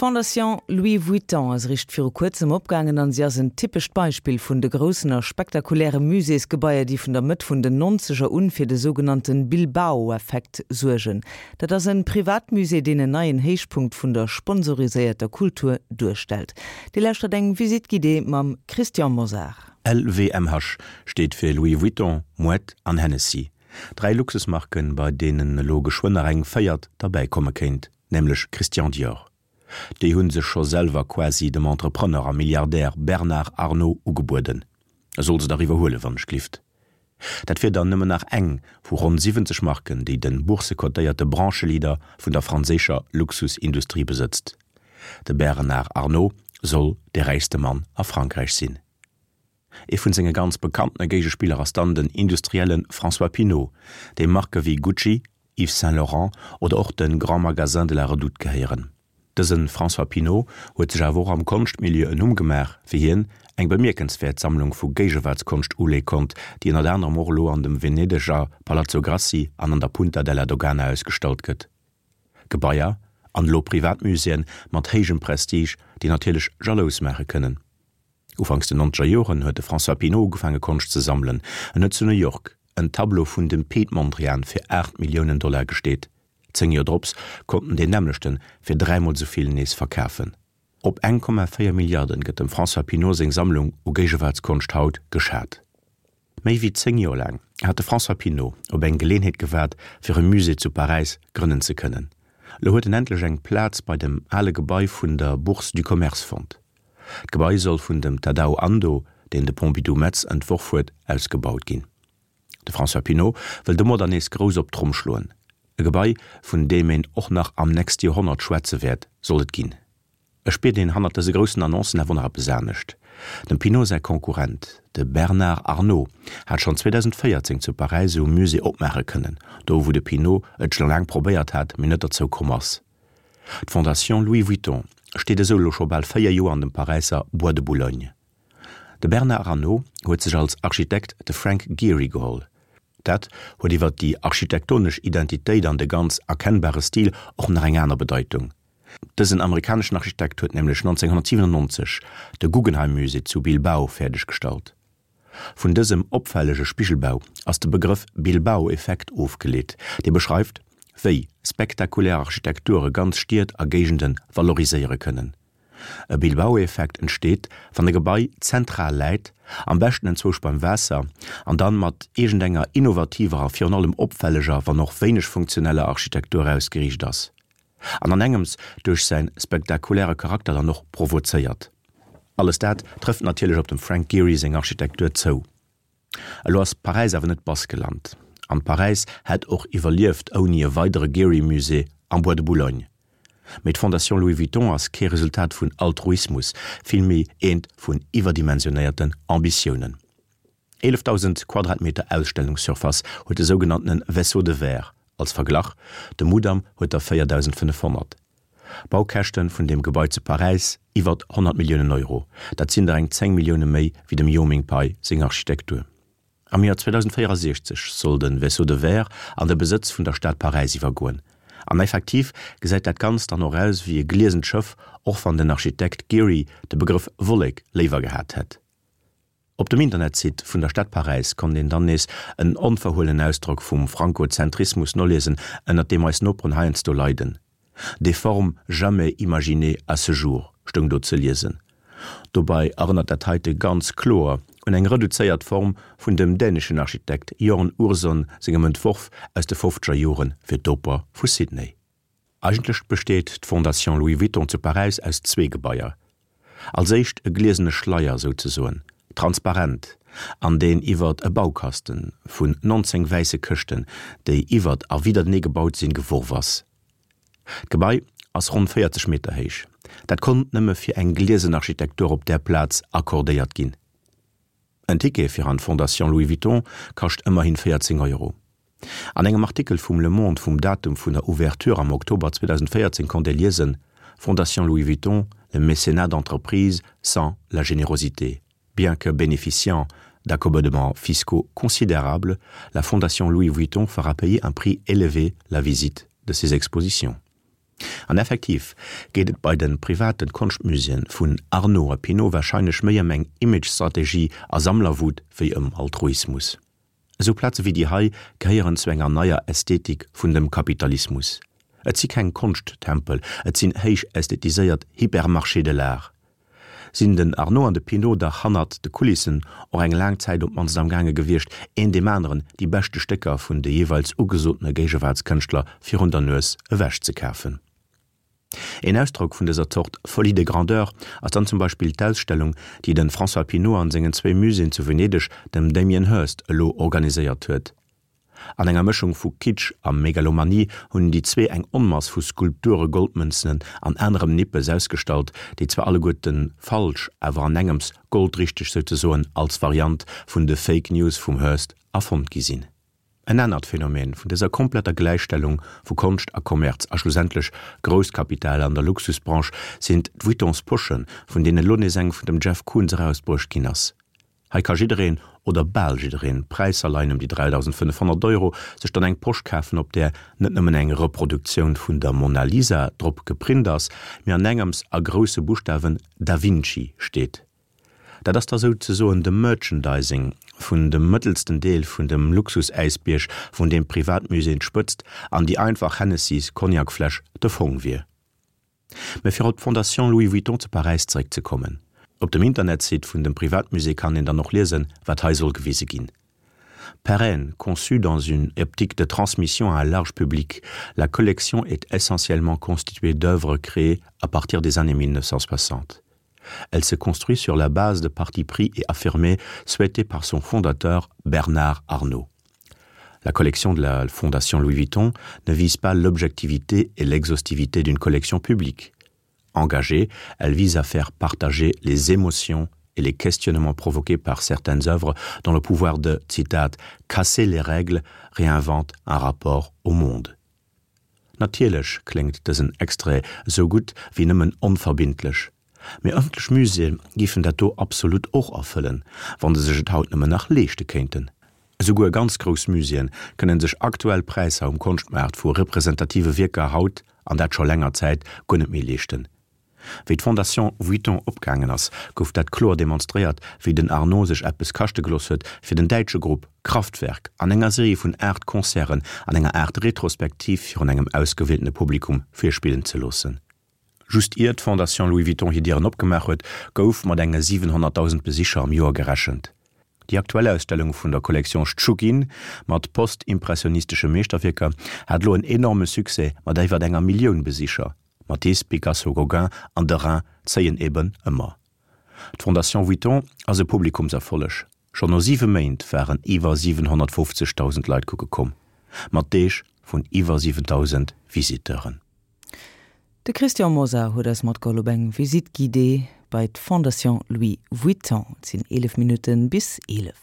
D'Fondation Louis Vuitton ass eréischt viru kuerzem opgaangen an si ass en typescht Beispill vun de groussen a spektakuläre Muséesgebaier, déi vun der Mëtt vun den Nonzeger un fir de sougenannte Bilbao-Effekt suergen. Dat ass en Privatmusée, deen en neien Héichpunkt vun der sponsoriséierter Kultur duerstellt. Dir lauschtert eng Visite guidée mam Christian Mosar. LVMH steet fir Louis Vuitton, Moët an Hennessy. Dräi Luxusmarken, bei deenen elo geschwënn nach eng véiert derbäi komme kéint, nämlech Christian Dior. Déi hu sech scho selwer quasi dem Entrepreneur a Milliardär Bernard Arnault ugebueden. E soll se dach iwwerhuelen, wann ech glift. Dat wier dann nëmmen nach eng vu ronn 70 Marken, déi de boursekotéierte Brancheleader vun der franséischer Luxusindustrie besëtzt. De Bernard Arnault soll de räichste Mann a Frankräich sinn. Ee vun senge ganz bekanntene Géigespiller ass dann den Industrielle François Pinault, deem Marke wéi Gucci, Yves Saint Laurent oder och de Grand Magasin de la Redoute gehéieren. Dëse François Pinault huet sech awer och am Konschtmilieu en Numm gemaach, wéi hien eng bemierkenswäert Sammlung vu Géigewaartskonscht uleeë konnt, déi ënnert anerem och elo an dem Venedeger Palazzo Grassi an an der Punta della Dogana ausgestallt gëtt. Gebaier an elo Privatmuséeën mat héijem Prestige, déi natierlech jalous maache kënnen. Ufanks den nonzeger Joren huet de François Pinault ugefaange Konscht ze sammelen. En huet zu New York en Tableau vun dem Piet Mondrian fir 8 Milliounen Dollar gesteet. 10 Joer drops konnt en deen nämmlechten fir dräimol esou vill nees verkafen. Op 1,4 Milliarden gëtt dem François Pinault seng Sammlung u Géigewaartskonscht haut geschat. Méi wéi 10 Joer laang hat de François Pinault op eng Geleenheet gewaart, fir e Musée zu Paräis grënnen ze kënnen. Elo huet en endlech eng Plaz bei dem ale Gebai vun der Bourse du Commerce fonnt. D'Gebai soll vun dem Tadao Ando, deen de Pompidou Metz entworf huet, ausgebaut ginn. De François Pinault wëll domadder nees grouss op d'Tromm schloen. E Gebai, vun deem een och nach am nächste Joerhonnert schwätze wäert, soll et ginn. Et spiert een hannert dëse groussen Annoncen awer nach eppes anescht. Dem Pinault säi Konkurrent, de Bernard Arnault, hat schonn 2014 zu Paräis esou e Musée opmaache kënnen, do wou de Pinault et scho laang probéiert hat, mee net derzou komm ass. D'Fondation Louis Vuitton steet esou elo scho bal 4 Joer an dem Paräisser Bois de Boulogne. De Bernard Arnault huet sech als Architekt de Frank Gehry geholl. Dat huet iwwer déi architektonesch Identitéit an de ganz erkennbare Stil och nach eng aner Bedeitung. Dësen amerikaneschen Architekt huet nämlech 1997 de Guggenheim Musée zu Bilbao fäerdeg gestallt. Vun dësem opfällege Spigelbau ass de Begrëff Bilbao-Effekt ofgeleet, dee beschreift, wéi spektakulär Architekture ganz Stied a Géigende valoriséiere kënnen. E Bilbao-Effekt entsteet, wann e Gebai zentral läit, am beschten enzwousch beim Waasser, an dann mat iergendenger innovativer a virun allem opfälleger, wann och wéineg funktioneller Architektur ausgeriicht ass. An an engems duerch säin spektakuläre Charakter dann och provozéiert. Alles dat trëfft natierlech op dem Frank Gehry seng Architektur zou. Elo ass Paräis awer net Baskeland, an Paräis hätt och iwwerlieft ouni e weidere Gehry-Musée am Bois de Boulogne. Mee d'Fondation Louis Vuitton ass kee Resultat vun Altruismus, villméi eent vun iwwerdimensionéierten Ambitiounen. 11.000 Quadratmeter Ausstellungssurface huet de sougenanntene Vaisseau de verre, als Verglach, de Mudam huet der 4.500. Baukäschte vun deem Gebai zu Paräis, iwwert 100 Milliounen Euro, dat sinn der eng 10 Millioune méi wéi dem Yoh Ming Pei seng Architektur. Am Joer 2064 soll de Vaisseau de verre an de Besëtz vun der Stad Paräis iwwergoen. An effektiv gesäit dat Ganzt dann och aus wéi e gliesent Schëff, och wann den Architekt Gehry de Begrëff Wollek léiwer gehat hätt. Op dem Internetsite vun der Stad Paräis konnt een dann nees en onverhuelenen Ausdrock vum Frankozentrismus noliesen, ënnert deem eis Noperen heiansdo leiden. Des formes jamais imaginées à ce jour stoung do ze liesen. Dobei erënnert dat heite ganz kloer un eng reduzéiert Form vun dem däneschen Architekt Jørn Utzon sengem Entworf aus de fofzeger Jore fir d'Oper vu Sydney. Eigentlech besteet d'Fondation Louis Vuitton zu Paräis aus zwee Gebaier. Als éischt e gliesene Schleier souzesoen, transparent, an deen iwwert e Baukasten vun 19 wäisse Këschten, déi iwwert a widdertenee gebaut sinn, geworf ass. D'Gebai ass ronn 40 Meter héich. Dat konnt nëmme fir eng gliesen Architektur op där Plaz accordéiert ginn. En Ticket fir an d'Fondation Louis Vuitton kascht ëmmerhin 14 Euro. An engem Artikel vum Le Monde vum Datum vun der Ouverture am Oktober 2014 konnt ee liesen, Fondation Louis Vuitton, le mécénat d'entreprise sans la générosité. Bien que bénéficiant d'accommodements fiscaux considérables, la Fondation Louis Vuitton fera payer un prix élevé la visite de ses expositions. An effektiv geet et bei de private Konschtmuséeën vun Arnault a Pinault warscheinlech méi ëm eng Image-Strategie a Sammlerwut wéi ëm Altruismus. Esou Plaze wéi déi hei gehéieren zu enger neier Ästhetik vun dem Kapitalismus. Et si keng Konschttempel, et sinn héich ästhetiséiert Hypermarchés de l'art. Sinn den Arnault an de Pinault dach hannert de Kulissen och eng laang Zäit op d'mannst am gaange gewiescht, een deem aneren déi beschte Stécker vun de jeeweils ugesotene Géigewaartskënschtler virun der Nues ewech ze kafen. Een Ausdrock vun dëser Zort Folie de grandeur ass dann zum Beispill d'Ausstellung, déi de François Pinault an sengen zwéi Muséeën zu Venedeg dem Damien Hirst elo organiséiert huet. An enger Mëschung vu Kitsch a Megalomanie hunn déi zwee eng Onmass vu Skulpture, Goldmënzen an anerem Nippes ausgestallt, déi zwar alleguerten falsch, awer an engems goldrichteg souzesoen als Variant vun de Fake News vum Hirst erfonnt gi sinn. En anert Phänomen vun dëser kompletter Gläichstellung vu Konscht a Kommerz a schlussendlech Grousskapital an der Luxusbranche sinn d'Vuittons Poschen, vun deenen elo nees eng vun dem Jeff Koons erausbruecht ginn ass. Hei ka jiddereen, oder bal jiddereen, Präisser leien ëm déi 3.500 Euro, sech dann eng Posch kafen, op där net nëmmen eng Reproduktioun vun der Mona Lisa drop geprint ass, mee an engems a grousse Buschtawen Da Vinci steet. Dat ass da souzesoen de Merchandising vun dem mëttelsten Deel vun dem Luxusäisbierg, vun deem d'Privatmuséeën d'Spëtzt an déi einfach Hennessys Cognacfläsch de Fong wier. Mä fir op d'Fondation Louis Vuitton zu Paräis zeréckzekommen, Op dem Internetsite vun dem Privatmusée kann een dann och liesen, wat hei soll gewise ginn. Pérenne, conçue dans une optique de transmission à un large public, la collection est essentiellement constituée d'œuvres créées à partir des années 1960. Elle se construit sur la base de partis pris et affirmés souhaités par son fondateur Bernard Arnault. La collection de la Fondation Louis Vuitton ne vise pas l'objectivité et l'exhaustivité d'une collection publique. Engagée, elle vise à faire partager les émotions et les questionnements provoqués par certaines œuvres dont le pouvoir de citat casser les règles réinvente un rapport au monde. Natierlech kléngt dësen Extrait esou gutt wéi nëmmen onverbindlech. Mee ëffentlech Muséeë giffen dat do absolut och erfëllen, wann se sech et haut nëmmen nach leeschte kéinten. Esouguer ganz grouss Muséeë kënnen sech aktuell Präisser um Konschtmaart vu representative Wierker haut, an dat scho länger Zäit, guer net méi leeschten. Wéi d'Fondation Vuitton opgaangen ass, gouf dat kloer demonstréiert, wéi den Arnault sech eppes kaschte gelooss huet, fir den däitsche Grupp Kraftwerk an enger Serie vun 8 Concerten an enger Aart Retrospektiv virun engem ausgewieltene Publikum virspillen ze loossen. Just ier d'Fondation Louis Vuitton hir Dieren opgemaach huet, gouf mat enge 700.000 Besicher am Joer gerechent. Déi aktuell Ausstellung vun der Collection Schtschugin mat post-impressionistesche Meeschterwierker hat elo en enorme Succès mat iwwer enger Millioun Besicher. Matisse, Picasso, Gauguin an Derain zéien eben ëmmer. D'Fondation Vuitton ass e Publikumserfolleg, schonn no siwe Méint waren iwwer 750.000 Leit kucke komm, mat Deeg vun iwwer 7.000 Visiteuren. De Christian Mosar huet eis matgeholl op eng Visite guidée bei d'Fondation Louis Vuitton. Et sinn 11 Minutten bis 11.